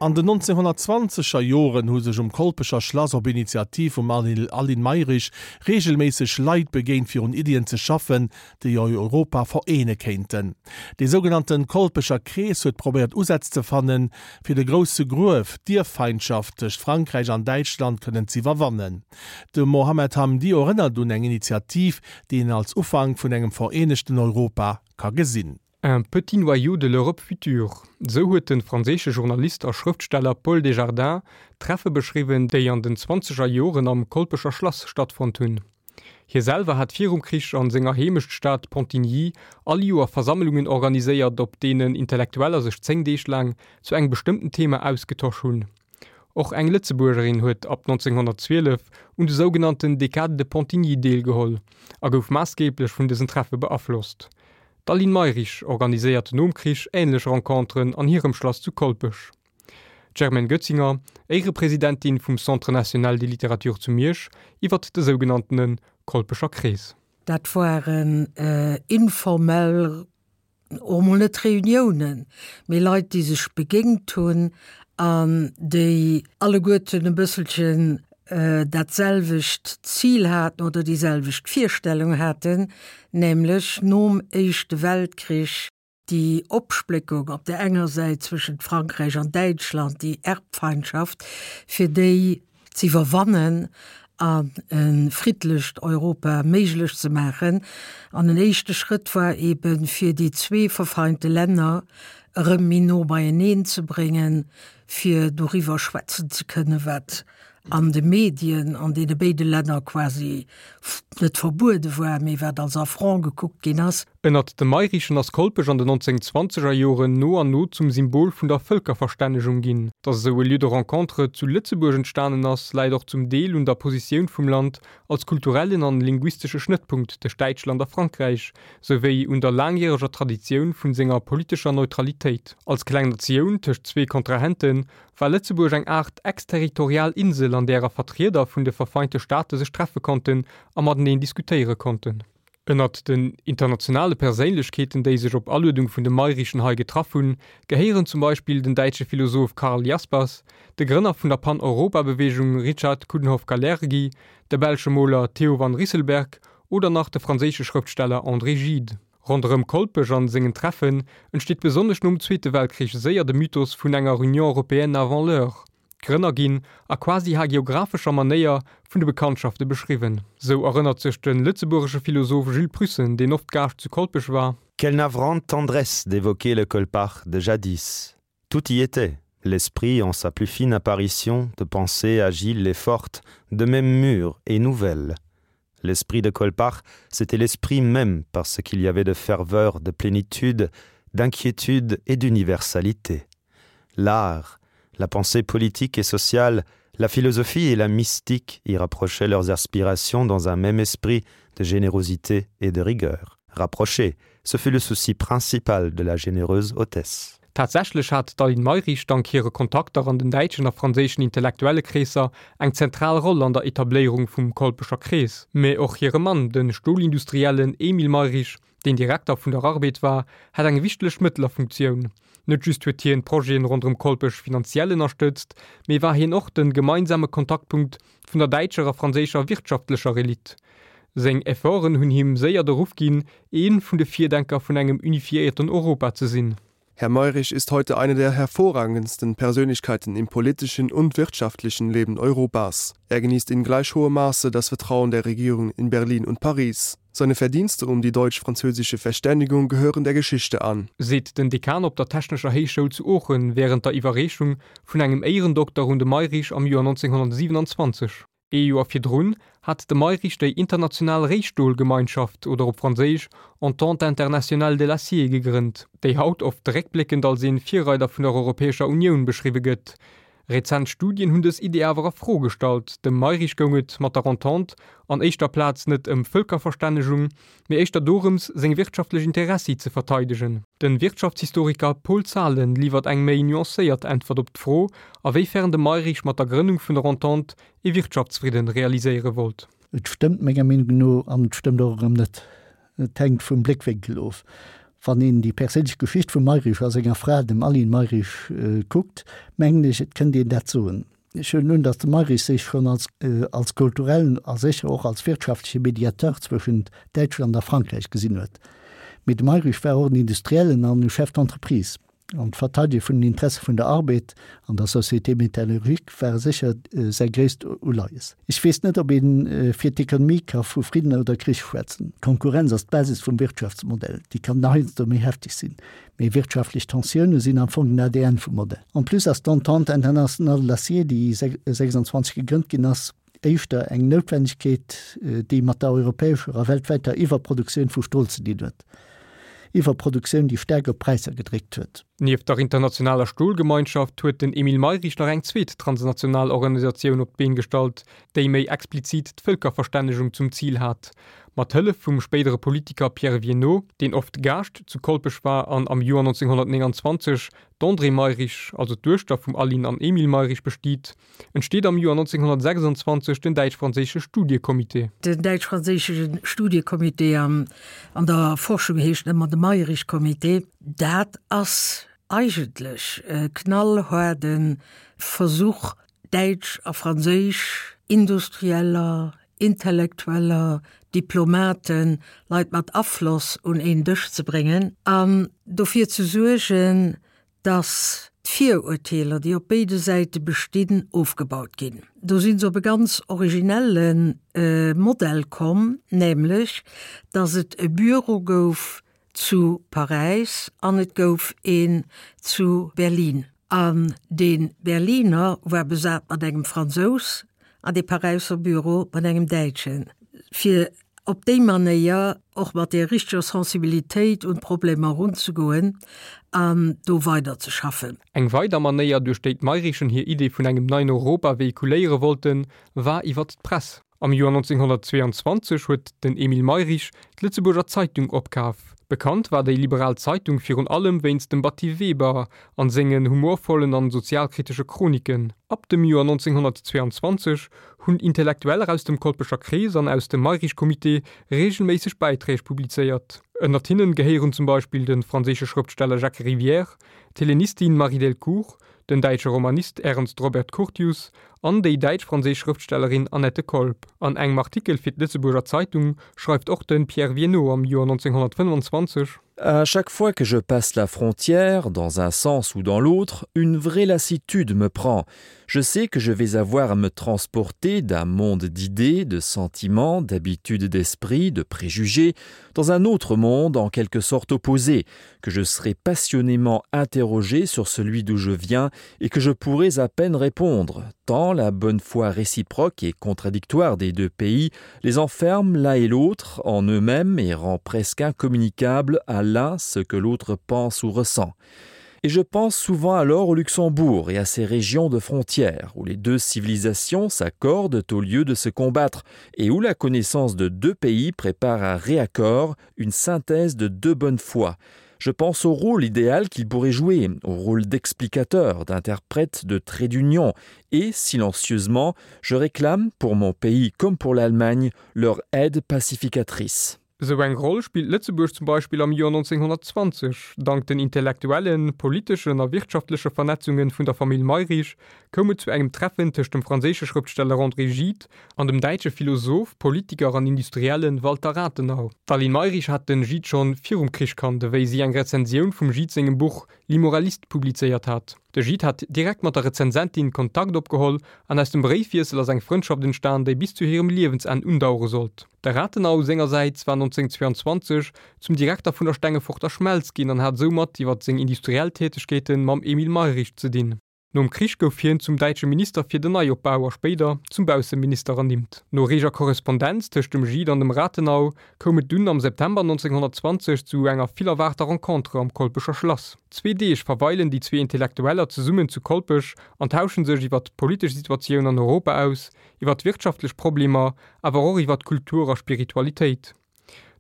An den 1920er Joren hu sech um Kolpecher Schlass op Initiativ vum Aline Mayrisch reegelméisseg Leit begéint fir un Iddien ze schaffen, déi Europa vereene kéinten. Dee sougenannten Kolpecher Krees huet probéiert Usätz ze fannen, fir de grousse Gruef, d'Ierffeindschaft tëscht Frankräich an Däitschland kënnen z'iwwerwannen. De Mohamed Hamdi erënnert un eng Initiativ, déi een als Ufank vun engem vereenegten Europa ka gesinn. Un petit noyau de l'Europe future, esou huet de franséische Journalist a Schrëftsteller Paul Desjardins d'Treffe beschriwwen, déi an den zwanzeger Joren am Kolpecher Schlass stattfonnt hunn. Hie selwer hat virum Krich an senger Heemechtstad Pontigny all Joer Versammelungen organiséiert, op deenen Intellektueller sech 10 Deeg laang zu engem bestëmmten Thema ausgetosch hunn. Och eng Lëtzebuergerin huet ab 1912 un de sougenannten Décades de Pontigny deelgeholl a gouf maassgeeblech vun dësen Treffe beaflosst. D'Aline Mayrisch organiséiert nom Krich änlech Renconteren an hirem Schlass zu Kolpech. D'Germaine Goetzinger, Éierepresidentin vum Centre national des littératures zu Miersch, iwwert de sougenanntene Kolpecher Krees. Dat waren informell, och emol net Reuniounen, mee Leit, déi sech begéint hunn an déi alleguerten e bësselchen dat selwecht Zil haten oder déi selwecht Virstellung haten, nämlech nom Éischte Weltkrich Déi Opspléckung op där enger Säit zwëschent Frankräich an Däitschland, déi Erbfeindschaft, fir déi z'iwwerwannen an e friddlecht Europa méiglech ze maachen. An en éischte Schrëtt war eben, fir déi zwee verfeinte Länner erëm méi no beieneen ze bréngen, fir doriwwer schwätzen ze kënnen, wat an de Medien an deene béide Länner quasi net verbuede war, mee wat als Affront gekuckt ginn ass. Ënnert de Mayrichen ass Kolpech an den 1920er Joren no an no zum Symbol vun der Vëlkerverstännegung ginn. Datt esou e Lieu de rencontre zu Lëtzebuerg entstanen ass, läit och zum Deel un der Positioun vum Land als kulturellen an linguistesche Schnëttpunkt tëscht Däitschland a Frankräich, souwéi un der laangjäreger Traditioun vun senger politescher Neutralitéit. Als kleng Natioun tëscht zwee Kontrahenten war Lëtzebuerg eng Aart exterritorial Insel, an därer Vertrieder vun de verfeinte Staate sech treffe konnten a mateneen diskutéiere konnten. Ënnert den internationale Perséinlechkeeten, déi sech op Aluedung vun de Mayrichen hei getraff hunn, gehéieren zum Beispill den däitsche Philosoph Karl Jaspers, de Grënner vun der Pan-Europa-Beweegung Richard Coudenhove-Kalergi, de belsche Moler Theo van Rysselberghe oder nach de franséische Schrëftsteller André Gide. Ronderëm Kolpech an sengen Treffen entsteet besonnesch nom Zweete Weltkrich séier de Mythos vun enger Union européenne avant l'heure. D'Grënner ginn a quasi hagiographescher Manéier vun de Bekanntschafte beschriwwen. Sou erënnert sech de lëtzebuergesche Philosoph Jules Prussen, deen oft Gaascht zu Kolpech war. Quelle navrante tendresse d'évoquer le Colpach de jadis! Tout y était, l'esprit en sa plus fine apparition de pensée agile et forte, de même mûre et nouvelle. L'esprit de Colpach, c'était l'esprit même parce qu'il y avait de ferveur, de plénitude, d'inquiétude et d'universalité. L'art, la pensée politique et sociale, la philosophie et la mystique y rapprochaient leurs aspirations dans un même esprit de générosité et de rigueur. Rapprocher, ce fut le souci principal de la généreuse hôtesse. Tatsächlech hat d'Aline Mayrisch dank hire Kontakter an den däitschen a franséischen Intellektuellekreesser eng zentral Roll an der Etabléierung vum Kolpecher Krees. Mä och hire Mann, de Stolindustriellen Emile Mayrisch, deen Direkter vun der Arbed war, hat eng wichtlech Mëttlerfunktioun. Net just huet hien d'Projeten ronderëm Kolpech finanziell ënnerstëtzt, mee war hien och de gemeinsame Kontaktpunkt vun der däitscher a franséischer wirtschaftlecher Elite. Seng Efforten hunn him séier de Ruff ginn, ee vun de Virdenker vun engem unifiéierten Europa ze sinn. Herr Mayrisch ist heute eine der hervorragendsten Persönlichkeiten im politischen und wirtschaftlichen Leben Europas. Er genießt in gleich hohem Maße das Vertrauen der Regierungen in Berlin und Paris. Seine Verdienste um die deutsch-französische Verständigung gehören der Geschichte an. Seet den Dekan op der Technescher Héichschoul zu Oochen wärend der Iwwerreechung vun engem Éierendokter un de Mayrisch am Joer 1927. Ee Joer virdrun hat de Mayrisch déi International Réistolgemeinschaft oder op Franséisch Entente Internationale de l'Acier gegrënnt, déi haut oft réckbléckend als ee Virreider vun der Europäescher Unioun beschriwwe gëtt. Rezent Studien hunn dës Idee awer a Fro gestallt. Dem Mayrisch goung et mat der Entente an éischter Plaz net ëm Vëlkerverstännegung, mee éischter dorëms, seng wirtschaftlech Interessi ze verteidegen. De Wirtschaftshistoriker Paul Zahlen liwwert eng méi nuancéiert Äntwert op d'Fro, a wéi fern de Mayrisch mat der Grënnung vun der Entente ee Wirtschaftsfridden realiséiere wollt. Et stëmmt menger Meenung no an et stëmmt och erëm net. Et hänkt vum Bléckwénkel of. Wann een déi perséinlech Geschicht vum Mayrisch a senger Fra, dem Aline Mayrisch, kuckt, mengen ech, et kënnt een dat soen. Ech huelen un, datt de Mayrisch sech schonn als als kulturellen a sécher och als wirtschaftleche Mediateur zwëschent Däitschland a Frankräich gesinn huet. Mee de Mayrisch war och en Industriellen an e Chef d'entreprise. An d'Verteidege vun den Interesse vun der Arbed an der Société métallurgique ware sécher säi gréisst Uleies. Ech weess net, ob ee fir d'Ekonomie ka vu Fridden oder Krich schwätzen. D'Konkurrenz ass d'Basis vum Wirtschaftsmodell. Déi kann heiansdo méi hefteg sinn, mee wirtschaftlech Tensioune sinn am Fong den ADN vum Modell. En plus ass d'Entente internationale de l'acier, déi 26 gegrënnt ginn ass, éischter eng Noutwennegkeet, déi mat der europäescher a weltwäiter Iwwerproduktioun vu Stol ze dinn huet. Iwwerproduktioun, déi staark op d'Präisser gedréckt huet. Nieft der internationaler Stolgemeinschaft huet den Emile Mayrisch nach eng zweet transnational Organisatioun op d'Been gestallt, déi méi explizit d'Vëlkerverstännegung zum Zil hat. Mat Hëllef vum spéidere Politiker Pierre Viénot, deen oft Gaascht zu Kolpech war an am Joer 1929 d'Andrée Mayrisch, also d'Duechter vum Aline an Emile Mayrisch bestiet, entsteet am Joer 1926 den däitsch-franséische Studiecomité. Den däitsch-franséische Studiecomité an der Forschung heescht ëmmer de Mayrisch-Comité. Dat ass eigentlech e knallhaarde Versuch, däitsch a franséisch Industrieller, Intellektueller, Diplomaten, Leit mat Afloss un een Dësch ze bréngen an dofir ze suergen, dass d'Virurteeler, déi op béide Säite bestinn, ofgebaut ginn. Do si se op e ganz originelle Modell komm, nämlech dass et e Büro gouf zu Paräis an et gouf een zu Berlin. An dee Berliner war besat mat engem Fransous an dee Paräisser Büro mat engem Däitschen, fir op déi Manéier och mat där richteger Sensibilitéit un d'Problemer erunzegoen an do weiderzeschaffen. Eng weider Manéier, duerch déi d'Mayrischen hir Idee vun engem neien Europa véhiculéiere wollten, war iwwert d'Press. Am Joer 1922 huet den Emile Mayrisch d'Lëtzebuerger Zeitung opkaf. Bekannt war déi liberal Zeitung virun allem wéinst dem Batty Weber an sengen humorvollen an sozialkritesche Chroniken. Ab dem Joer 1922 hunn Intellektueller aus dem Kolpecher Krees an aus dem Mayrisch-Comité reegelméisseg Bäiträg publizéiert. Ënnert hinnen gehéieren zum Beispill de franséische Schrëftsteller Jacques Rivière, d'Hellenistin Marie Delcourt, den däitsche Romanist Ernst Robert Curtius an déi däitsch-franséisch Schrëftstellerin Annette Kolb. An engem Artikel fir d'Lëtzebuerger Zeitung schreift och de Pierre Viénot am Joer 1925. À chaque fois que je passe la frontière, dans un sens ou dans l'autre, une vraie lassitude me prend. Je sais que je vais avoir à me transporter d'un monde d'idées, de sentiments, d'habitudes d'esprit, de préjugés, dans un autre monde en quelque sorte opposé, que je serai passionnément interrogé sur celui d'où je viens et que je pourrais à peine répondre, tant la bonne foi réciproque et contradictoire des deux pays les enferme l'un et l'autre en eux-mêmes et rend presque incommunicable à l'un ce que l'autre pense ou ressent. Et je pense souvent alors au Luxembourg et à ses régions de frontières, où les deux civilisations s'accordent au lieu de se combattre et où la connaissance de deux pays prépare un réaccord, une synthèse de deux bonnes foi. Je pense au rôle idéal qu'il pourrait jouer, au rôle d'explicateur, d'interprète de trait d'union, et, silencieusement, je réclame, pour mon pays comme pour l'Allemagne, leur aide pacificatrice. Esou eng Roll spillt Lëtzebuerg zum Beispill am Joer 1920. Dank den intellektuellen, politeschen a wirtschaftleche Vernetzunge vun der Famill Mayrisch koum et zu engem Treffen tëscht dem franséische Schrëftsteller André Gide an dem däitsche Philosoph, Politiker an Industrielle Walter Rathenau. D'Aline Mayrisch hat den Gide schonn virum Krich kannt, ewéi si eng Rezensioun vum Gide sengem Buch L'Immoraliste publizéiert hat. De Gide hat direkt mat der Rezensentin Kontakt opgeholl an aus dem Bréifwiessel ass eng Frëndschaft entstan, déi bis zu hirem Liewensenn undauere sollt. De Rathenau sengersäits war 1922 zum Direkter vun der Stengeforter Schmelz ginn an hat soumat iwwer seng industriell Tätegkeete mam Emile Mayrisch ze dinn. Nom Krich gouf hien zum däitsche Minister fir den Neiopbau a spéider zum Bausseminister ernimmt. No reeger Korrespondenz tëscht dem Gide an dem Rathenau koum et dunn am September 1920 zu enger vill erwaarter Rencontre am Kolpecher Schlass. Zwee Deeg verweilen déi zwee Intellektueller zesummen zu Kolpech an tauschen sech iwwer d'politesch Situatioun an Europa aus, iwwer d'wirtschaftlech Problemer, awer och iwwer d'Kultur a Spiritualitéit.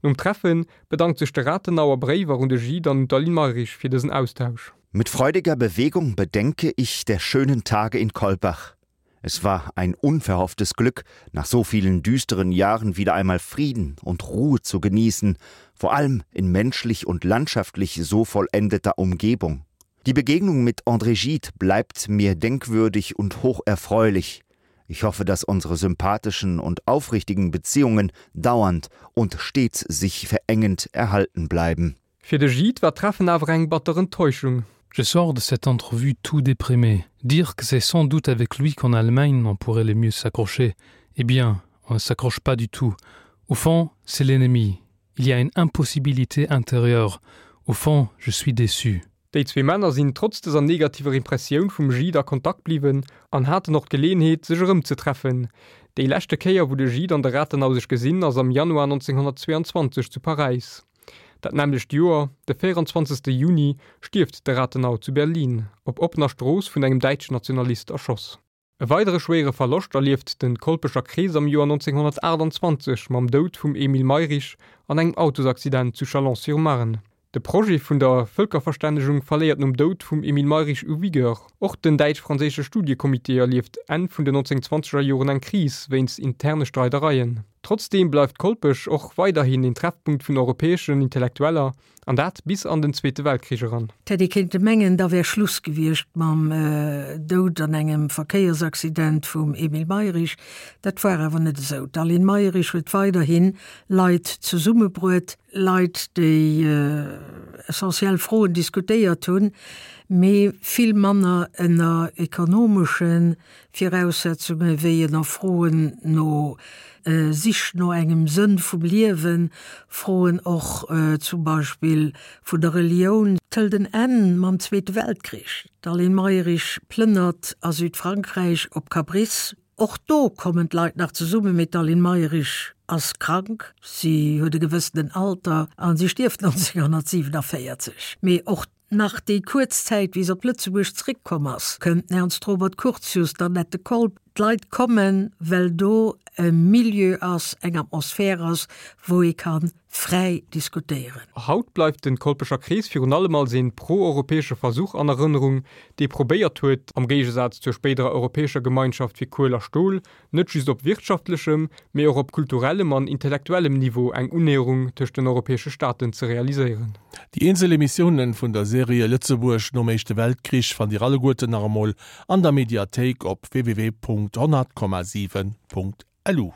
Nom Treffen bedankt sech de Rathenau a Bréiwer un de Gide an un d'Aline Mayrisch fir dësen Austausch. Mit freudiger Bewegung bedenke ich der schönen Tage in Kolbach. Es war ein unverhofftes Glück, nach so vielen düsteren Jahren wieder einmal Frieden und Ruhe zu genießen, vor allem in menschlich und landschaftlich so vollendeter Umgebung. Die Begegnung mit André Gide bleibt mir denkwürdig und hocherfreulich. Ich hoffe, dass unsere sympathischen und aufrichtigen Beziehungen dauernd und stets sich verengend erhalten bleiben. Fir de Gide war d'Treffen awer eng batter Enttäuschung. Je sors de cette entrevue tout déprimé. Dire que c'est sans doute avec lui qu'en Allemagne on pourrait le mieux s'accrocher. Eh bien, on ne s'accroche pas du tout. Au fond, c'est l'ennemi. Il y a une impossibilité intérieure. Au fond, je suis déçu. Déi zwee Männer sinn trotz dëser negativer Impressioun vum Gide a Kontakt bliwwen an haten och d'Geleeënheet, sech erëmzetreffen. Déi leschte Kéier, wou de Gide an de Rathenau sech gesinn, ass am Januar 1922 zu Paräis. Dat nämmlecht Joer, de 24. Juni, stierft de Rathenau zu Berlin, op oppener Strooss vun engem däitschen Nationalist erschoss. E weidere schwéiere Verloscht erlieft de Kolpecher Krees am Joer 1928 mam Doud vum Emile Mayrisch an engem Autosaccident zu Chalon-sur-Marne. De Projet vun der Vëlkerverstännegung verléiert nom Doud vum Emile Mayrisch u Vigueur. Och den däitsch-franséische Studiecomité erlieft Enn vun den 1920er Joren eng Kris wéinst interne Streidereien. Trotzdeem bleift Kolpech och weiderhin een Treffpunkt vun europäeschen Intellektueller, an dat bis an den Zweete Weltkrich eran. Et hätt ee kéinte mengen, da wär Schluss gewiescht mam Doud an engem Verkéiersaccident vum Emile Mayrisch. Dat war awer net esou. D'Aline Mayrisch huet weiderhi Leit zesummebruet, Leit, déi essentiell Froen diskutéiert hunn, mee vill manner ënner ekonomesche Viraussetzunge wéi ënner Froen no Sich no engem Sënn vum Liewen, Froen och zum Beispill vun der Relioun. D'hëlt en Enn mam Zweete Weltkrich. D'Aline Mayrisch plënnert a Südfrankräich op Cabris. Och do kommen d'Leit nach zesummen, mee d'Aline Mayrisch ass krank, si huet e gewëssenen Alter a si stierft 1947. Mee och Nach déi kuerz Zäit, wéi se op Lëtzebuerg zréckkomm ass, kënnt den Ernst Robert Curtius, d'Annette Kolb. D'Leit kommen, well do e Milieu ass, eng Atmosphär ass, wou ee ka fräi diskutéieren. Haut bleift de Kolpecher Krees virun allem als een pro-europäesche Versuch an Erënnerung, dee probéiert huet, am Géigesaz zur spéiderer Europäescher Gemeinschaft fir Kuel a Stol, net just op wirtschaftlechem, mee och op kulturellem an intellektuellem Niveau eng Unnäherung tëscht den europäesche Staaten ze realiséieren. Déi eenzel Emissiounen vun der Serie Lëtzebuerg nom Éischte Weltkrich fannt Dir alleguerten nach emol an der Mediathéik op www.100,7.lu.